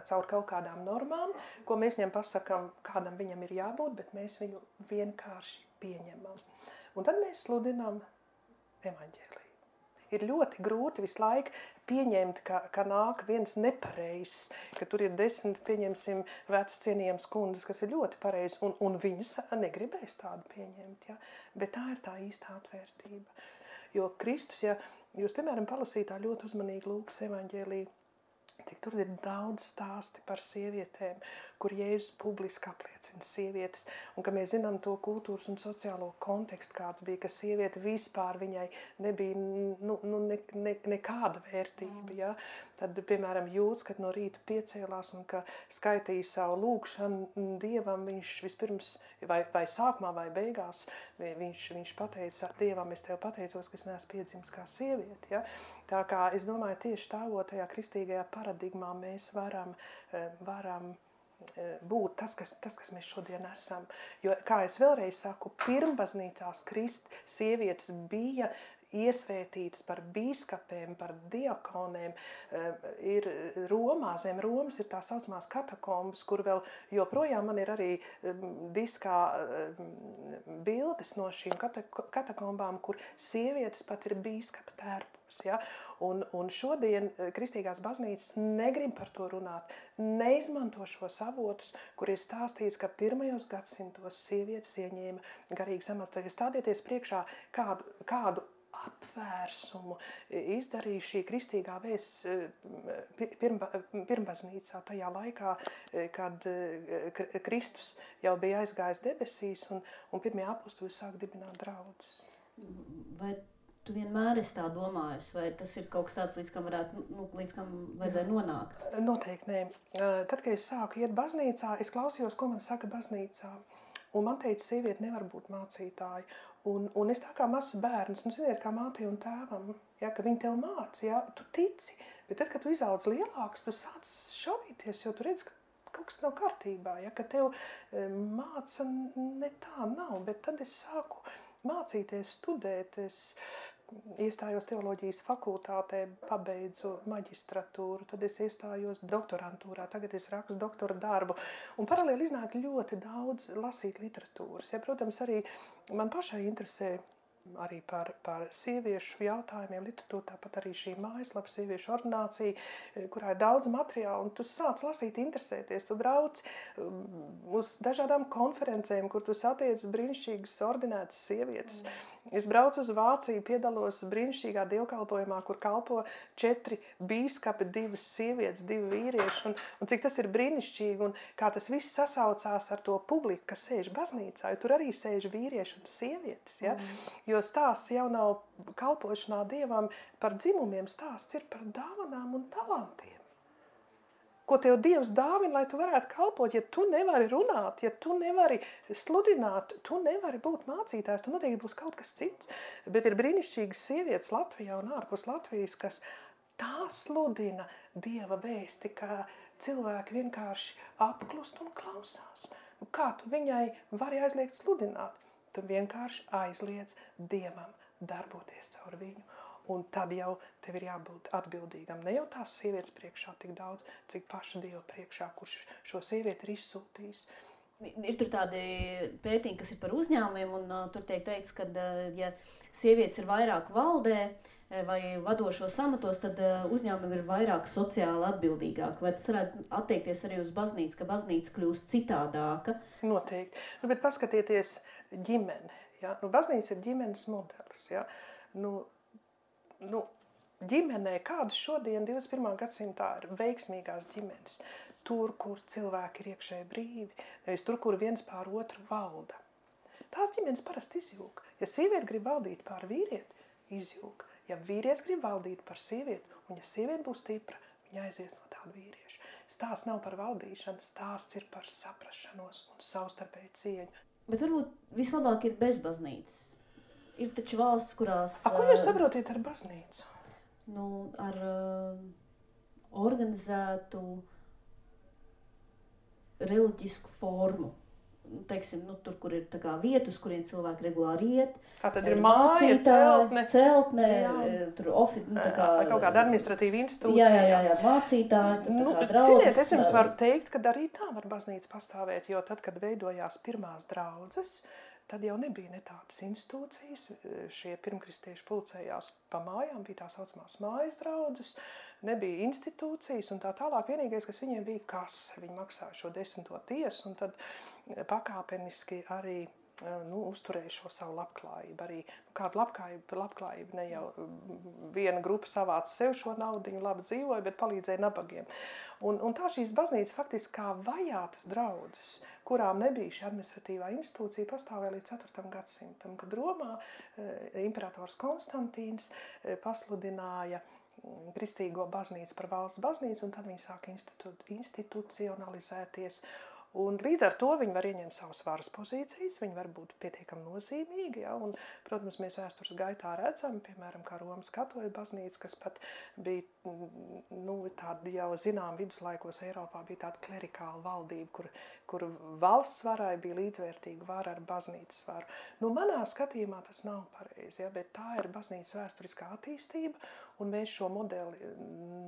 caur kaut kādām normām, ko mēs viņam pasakām, kādam viņam ir jābūt, bet mēs viņu vienkārši pieņemam. Un tad mēs sludinām evaņģēliju. Ir ļoti grūti visu laiku pieņemt, ka nāk viens nepareizs, ka tur ir 10, pieņemsim, vecas cienījams kundas, kas ir ļoti pareizi, un viņas negribēs tādu pieņemt. Ja? Bet tā ir tā īstā atvērtība. Jo Kristus, ja jūs, piemēram, palasītā ļoti uzmanīgi Lūkas evaņģēliju, cik tur ir daudz stāsti par sievietēm, kur Jēzus publiski apliecina sievietes, un ka mēs zinām to kultūras un sociālo kontekstu, kāds bija, ka sieviete vispār viņai nebija nekāda vērtība. Ja? Tad, piemēram, Jūds, kad no rīta piecēlās un ka skaitīja savu lūgšanu Dievam, viņš vispirms, vai sākumā vai beigās, viņš pateica Dievam, es tev pateicos, ka es neesmu piedzimis kā sieviete. Ja? Tā kā es domāju, tieši stāvot tajā kristīgajā paradigmā mēs varam būt tas, kas mēs šodien esam. Jo, kā es vēlreiz saku, pirmbaznīcās sievietes bija iesvētītas par bīskapēm, par diakonēm. Ir Romā, zem Romas ir tā saucamās katakombas, kur vēl joprojām man ir arī diskā bildes no šīm katakombām, kur sievietes pat ir bīskapa tērpos. Ja? Un šodien kristīgās baznīcas negrib par to runāt, neizmanto šos avotus, kur ir stāstīts, ka pirmajos gadsimtos sievietes ieņēma garīgas amats. Tad stādieties priekšā kādu apvērsumu izdarīja šī kristīgā vēsts pirmbaznīcā tajā laikā, kad Kristus jau bija aizgājis debesīs un pirmie apustuļi sāk dibināt draudzes. Vai tu vienmēr esi tā domājusi, vai tas ir kaut kas tāds, līdz kam vajadzēja nonākt? Noteikti nē. Tad, kad es sāku iet baznīcā, es klausījos, ko man saka baznīcā. Un man teica, sieviete nevar būt mācītāja. Un es tā kā mazs bērns, ziniet, kā mātei un tēvam, ja, ka viņi tev māca, ja, tu tici. Bet tad, kad tu izaudz lielāks, tu sāc šaubīties, jo tu redz, ka kaut kas nav kārtībā, ja, ka tev māca ne tā nav. Bet tad es sāku mācīties, studēt, es iestājos teoloģijas fakultātē, pabeidzu maģistratūru, tad es iestājos doktorantūrā, tagad es rakstu doktora darbu. Un paralēli iznāk ļoti daudz lasīt literatūras. Ja, protams, arī man pašai interesē arī par sieviešu jautājumiem literatūra, tāpat arī šī mājaslapa sieviešu ordinācija, kurā ir daudz materiālu, un tu sāc lasīt, interesēties, tu brauc uz dažādām konferencēm, kur tu satiec brīnišķīgas ordinētas sievietes. Es braucu uz Vāciju, piedalos brīnišķīgā dievkalpojumā, kur kalpo 4 bīskapi, 2 sievietes, 2 vīrieši, un cik tas ir brīnišķīgi, un kā tas viss sasaucās ar to publiku, kas sēž baznīcā, jo tur arī sēž vīrieši un sievietes, ja? Jo stāsts jau nav kalpošanā Dievam par dzimumiem, stāsts ir par dāvanām un talantiem. Ko tev Dievs dāvina, lai tu varētu kalpot, ja tu nevari runāt, ja tu nevari sludināt, tu nevari būt mācītājs, tu noteikti būs kaut kas cits. Bet ir brīnišķīgas sievietes Latvijā un ārpus Latvijas, kas tā sludina Dieva vēsti, ka cilvēki vienkārši apklust un klausās. kā tu viņai vari aizliegt sludināt? Tu vienkārši aizliedz Dievam darboties caur viņu. Un tad jau tev ir jābūt atbildīgam. Ne jau tās sievietes priekšā tik daudz, cik paša Dieva priekšā, kurš šo sievieti ir izsūtījis. Ir tur tādi pētījumi, kas ir par uzņēmumiem, un tur tiek teikts, ka ja sievietes ir vairāk valdē vai vadošos amatos, tad uzņēmumi ir vairāk sociāli atbildīgāki. Vai tas varētu attiekties arī uz baznīcu, ka baznīca kļūst citādāka? Noteikti. Bet paskatieties ģimene. Ja? Baznīca ir ģimenes modelis. Ja? Ģimenē, kādas šodien 21. gadsimtā ir veiksmīgās ģimenes? Tur, kur cilvēki ir iekšēji brīvi, nevis tur, kur viens pār otru valda. Tās ģimenes parasti izjūg. Ja sieviete grib valdīt pār vīrieti, izjūg. Ja vīrietis grib valdīt par sievieti, un ja sieviete būs stipra, viņa aizies no tāda vīrieša. Stāsts nav par valdīšanu, stāsts ir par saprašanos un savstarpēju cieņu. Bet varbūt vislabāk ir bez baznīcas. Ir taču valsts, kurās... Ko jūs saprotiet ar baznīcu? Ar organizētu reliģisku formu. Teiksim, tur, kur ir tā kā vieta, uz kuriem cilvēki regulāri iet. Tā tad ir māja, celtne, tur kaut kāda administratīva institūcija. Jā, mācītāji, Ciniet, es jums varu teikt, ka arī tā var baznīca pastāvēt, jo tad, kad veidojās pirmās draudzes, tad jau nebija ne tādas institūcijas, šie pirmkristieši pulcējās pa mājām, bija tā saucamās mājas draudzes, nebija institūcijas un tā tālāk. Vienīgais, kas viņiem bija kase, viņi maksāja šo 10. tiesu un tad pakāpeniski arī uzturēja šo savu labklājību. Arī kādu labklājību ne jau viena grupa savāca sev šo naudiņu, labi dzīvoja, bet palīdzēja nabagiem. Un tā šīs baznīcas faktiski kā vajātas draudzes, kurām nebija šī administratīvā institūcija, pastāvēja līdz 4. gadsimtam, kad Romā imperators Konstantīns pasludināja kristīgo baznīcu par valsts baznīcu, un tad viņi sāka institucionalizēties. Un līdz ar to viņi var ieņemt savas varas pozīcijas, viņi var būt pietiekami nozīmīgi. Ja? Un, protams, mēs vēstures gaitā redzam, piemēram, kā Romas katoļu baznīca, kas pat bija tāda jau zinām viduslaikos Eiropā, bija tāda klerikāla valdība, kur valsts varai bija līdzvērtīga vara ar baznīcas varu. Manā skatījumā tas nav pareizi, ja? Bet tā ir baznīcas vēsturiskā attīstība, un mēs šo modeli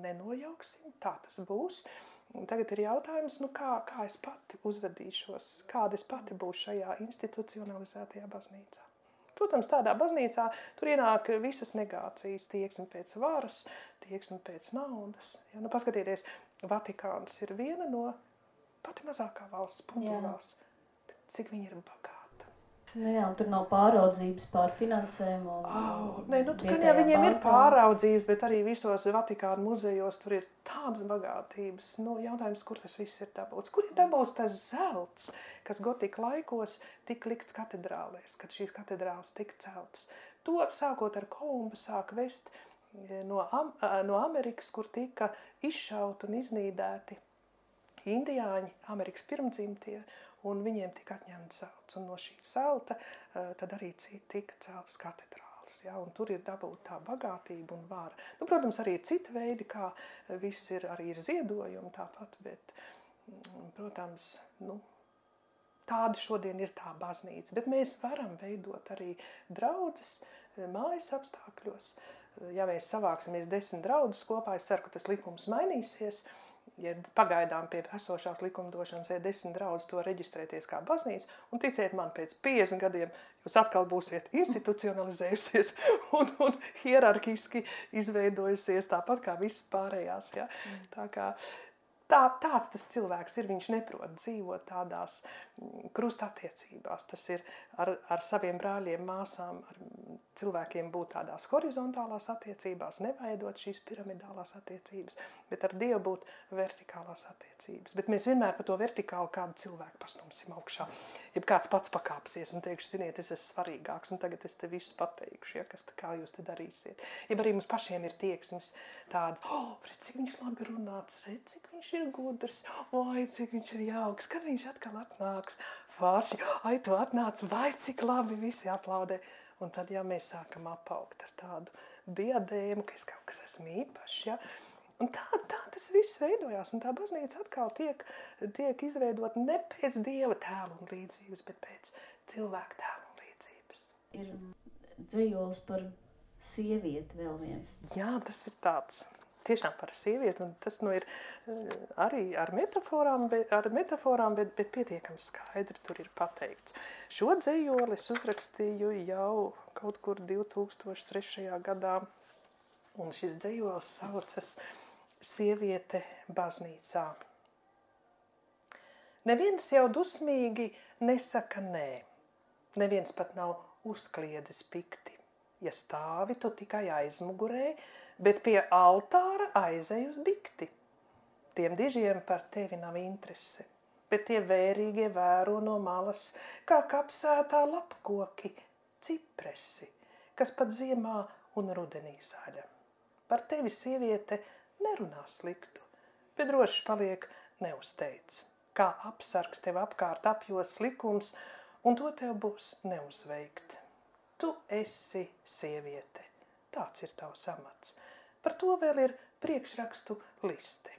nenojauksim, tā tas būs. Un tagad ir jautājums, kā es pati uzvedīšos, kāda es pati būšu šajā institucionalizētajā baznīcā. Protams, tādā baznīcā tur ienāk visas negācijas, tieksme pēc varas, tieksme pēc naudas. Ja? Paskatieties, Vatikāns ir viena no pati mazākā valsts, punktūrās, cik viņi ir bagāti. Jā, un tur nav pāraudzības pār finansēm. Viņiem ir pāraudzības, bet arī visos Vatikāna muzejos tur ir tādas bagātības. Jautājums, kur tas viss ir dabūts? Kur ir dabūts tas zelts, kas gotika laikos tika likts katedrālēs, kad šīs katedrāles tika celtas? To sākot ar Kolumbu sāk vest no Amerikas, kur tika izšauti un iznīdēti indiāņi, Amerikas pirmdzimtie, un viņiem tika atņemts zelts. Un no šī zelta tad arī tika celtas katedrāles. Ja? Un tur ir dabūta tā bagātība un vara. Protams, arī ir citi veidi, kā viss ir, arī ir ziedojumi tāpat, bet, protams, tāda šodien ir tā baznīca. Bet mēs varam veidot arī draudzes mājas apstākļos. Ja mēs savāksimies 10 draudzes kopā, es ceru, ka tas likums mainīsies. Ja pagaidām pie esošās likumdošanas 10 draudzes to reģistrēties kā baznīca, un ticiet man, pēc 50 gadiem jūs atkal būsiet institucionalizējusies un hierarkiski izveidojusies tāpat kā visas pārējās. Ja? Tāds tas cilvēks ir, viņš neprot dzīvot tādās krustattiecībās. Tas ir ar saviem brāļiem, māsām, ar cilvēkiem būt tādās horizontālās attiecībās, neveidot šīs piramidālās attiecības, bet ar Dievu būt vertikālās attiecības. Bet mēs vienmēr par to vertikālu kādu cilvēku pastumsim augšā. Ja kāds pats pakāpsies un teikšu, ziniet, es esmu svarīgāks, un tagad es te visu pateikšu, ja, kā jūs te darīsiet. Ja arī mums pašiem ir tieksmes tādas, redz, cik viņš labi runāts, redz, cik viņš ir gudrs, vai cik viņš ir jauks, kad viņš atkal atnāks, forši, tu atnāc, vai cik labi, visi aplaudē. Un tad, ja mēs sākam apaugt ar tādu diadēmu, ka es kaut kas esmu īpašs, ja, Un tā tas viss veidojās, un tā baznīca atkal tiek izveidot ne pēc Dieva tēla un līdzības, bet pēc cilvēka tēla un līdzības. Ir dzejols par sievieti vēl viens. Jā, tas ir tāds tiešām par sievieti, un tas ir arī ar metaforām, bet pietiekami skaidri tur ir pateikts. Šo dzejoli es uzrakstīju jau kaut kur 2003. gadā, un šis dzejols saucas Sieviete baznīcā. Neviens jau dusmīgi nesaka nē, neviens pat nav uzkliedzis pikti. Ja stāvi, tu tikai aizmugurē, bet pie altāra aizej uz bikti. Tiem dižiem par tevi nav interese, bet tie vērīgie vēro no malas, kā kapsētā lapkoki, cipresi, kas pat ziemā un rudenī zaļa. Par tevi, sieviete, nerunā sliktu, bet droši paliek neuzteic. Kā apsargs tev apkārt apjos likums, un to tev būs neuzveikt. Tu esi sieviete, tāds ir tavs amats. Par to vēl ir priekšrakstu liste.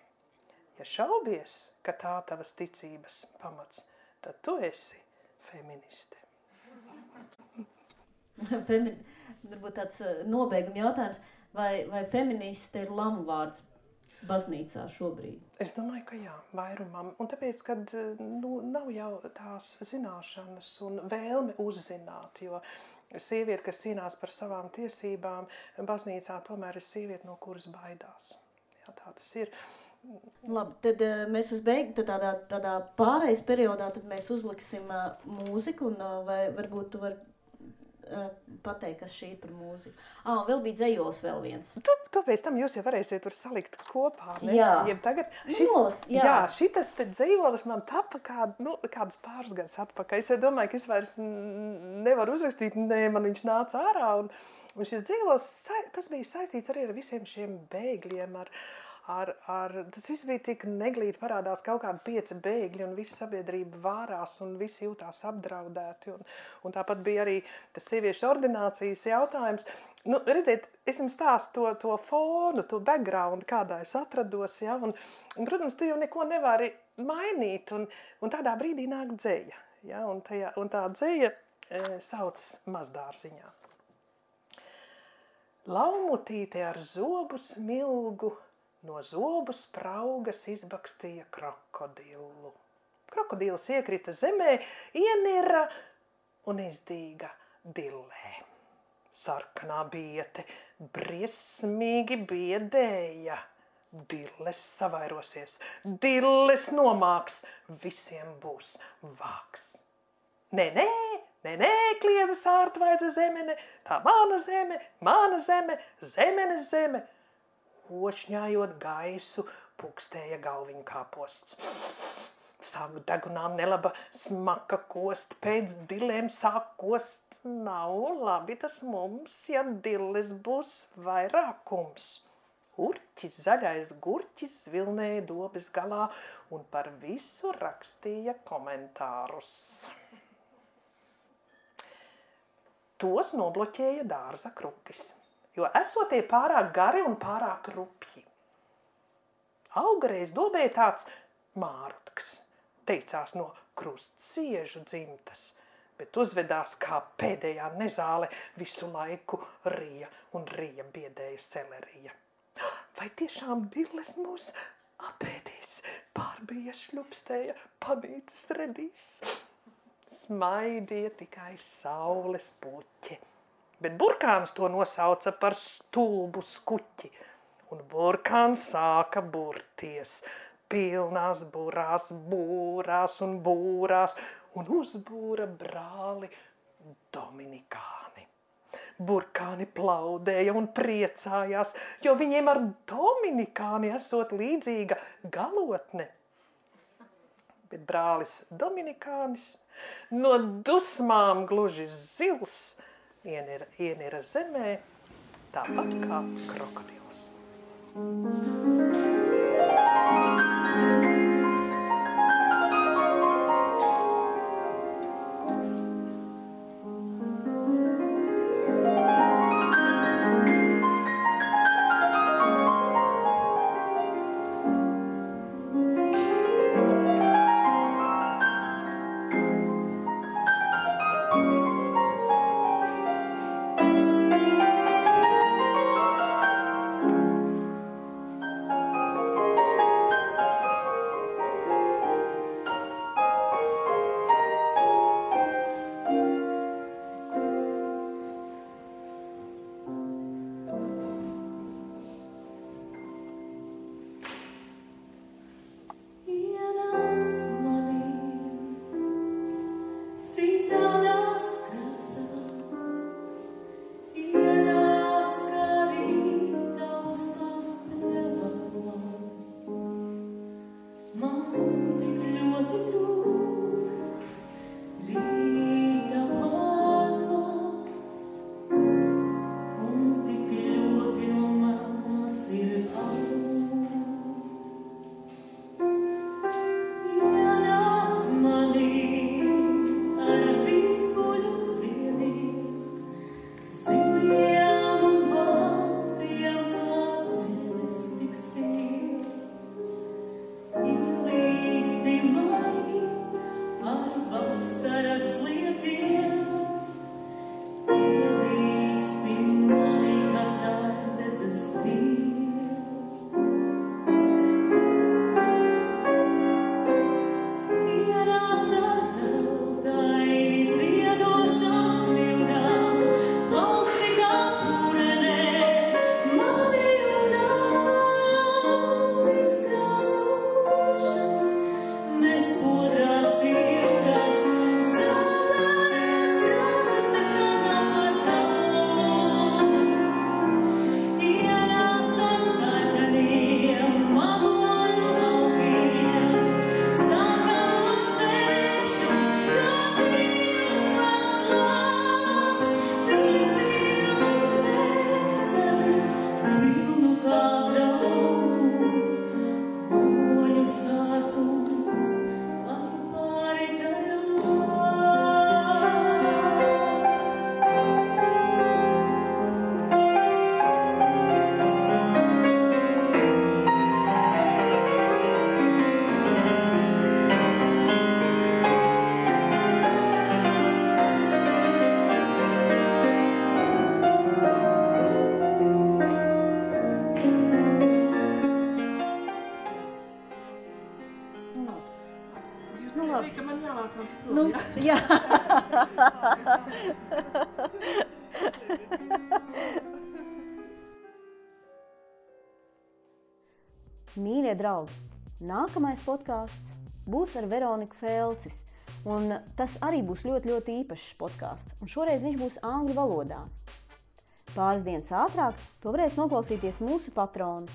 Ja šaubies, ka tā tavas ticības pamats, tad tu esi feministe. Varbūt tāds nobeiguma jautājums, vai feministe ir lamu vārds baznīcā šobrīd? Es domāju, ka jā, vairumam. Un tāpēc, kad nav jau tās zināšanas un vēlme uzzināt, jo sieviete, kas cīnās par savām tiesībām, baznīcā tomēr ir sieviete, no kuras baidās. Jā, tā tas ir. Labi, tad mēs tādā pārejas periodā tad mēs uzliksim mūziku, un vai varbūt tu vari pateikt, kas šī ir par mūziku. Vēl bija dzejols vēl viens. Tu pēc tam jūs jau varēsiet tur salikt kopā, ne? Jā. Jeb tagad, šitas te dzejolis man tapa kādus pāris gadus atpakaļ. Es domāju, ka es vairs nevaru uzrakstīt, man viņš nāca ārā. Un šis dzejolis, tas bija saistīts arī ar visiem šiem bēgļiem, tas viss bija tik neglīti, parādās kaut kādi 5 bēgļi, un visa sabiedrība vārās, un visi jūtās apdraudēti. Un tāpat bija arī tas sieviešu ordinācijas jautājums. Redziet, es jums stāstu to fonu, to background, kādā es atrados, ja, un protams, tu jau neko nevari mainīt, un tādā brīdī nāk dzeja, ja, un tā dzeja sauc Mazdārziņā. Laumutīte ar zobu smilgu no zobu spraugas izbakstīja krokodilu. Krokodils iekrita zemē, ienira un izdīga dillē. Sarkanā biete briesmīgi biedēja. Dilles savairosies, dilles nomāks, visiem būs vāks. Nē, kliedza sārtvaidza zemene, tā mana zeme, zemenes zeme. Ošņājot gaisu, pukstēja galviņu kāposts. Sāk degunā nelaba smaka kost, pēc dillēm sāk kost. Nav labi tas mums, ja dilles būs vairākums. Urķis, zaļais gurķis vilnēja dobes galā un par visu rakstīja komentārus. Tos nobloķēja dārza krupis, jo esotie pārāk gari un pārāk rupji. Augareiz dobē tāds mārutks, teicās no krustsiežu dzimtas, bet uzvedās kā pēdējā nezāle, visu laiku rija un rija biedēja selerija. Vai tiešām dilles mūs apēdīs, pārbija šļupstēja, panīcis redīs? Smaidīja tikai saules puķi. Bet burkāns to nosauca par stulbu skuķi, un burkāns sāka burties, pilnās būrās un uzbūra brāli Dominikāni. Burkāni plaudēja un priecājās, jo viņiem ar Dominikāni esot līdzīga galotne. Bet brālis Dominikānis no dusmām gluži zils ienira zemē, tāpat kā krokodils. Nu, labi. Ka man jālācās prom, Nu, jā. Mīļie draugi, nākamais podkāsts būs ar Veroniku Felcis, un tas arī būs ļoti īpašs podkāsts, un šoreiz viņš būs angļu valodā. Pāris dienas ātrāk to varēs noklausīties mūsu patroni.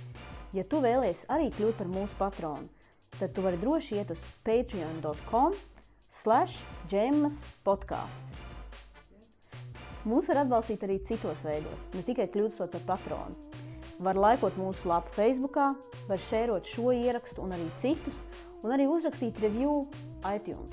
Ja tu vēlies arī kļūt par mūsu patronu, tad tu vari droši iet uz patreon.com/džemmaspodcasts. Mūs var atbalstīt arī citos veidos, ne tikai kļūstot par patronu. Var laikot mūsu lapu Facebookā, var šērot šo ierakstu un arī citus, un arī uzrakstīt review iTunes.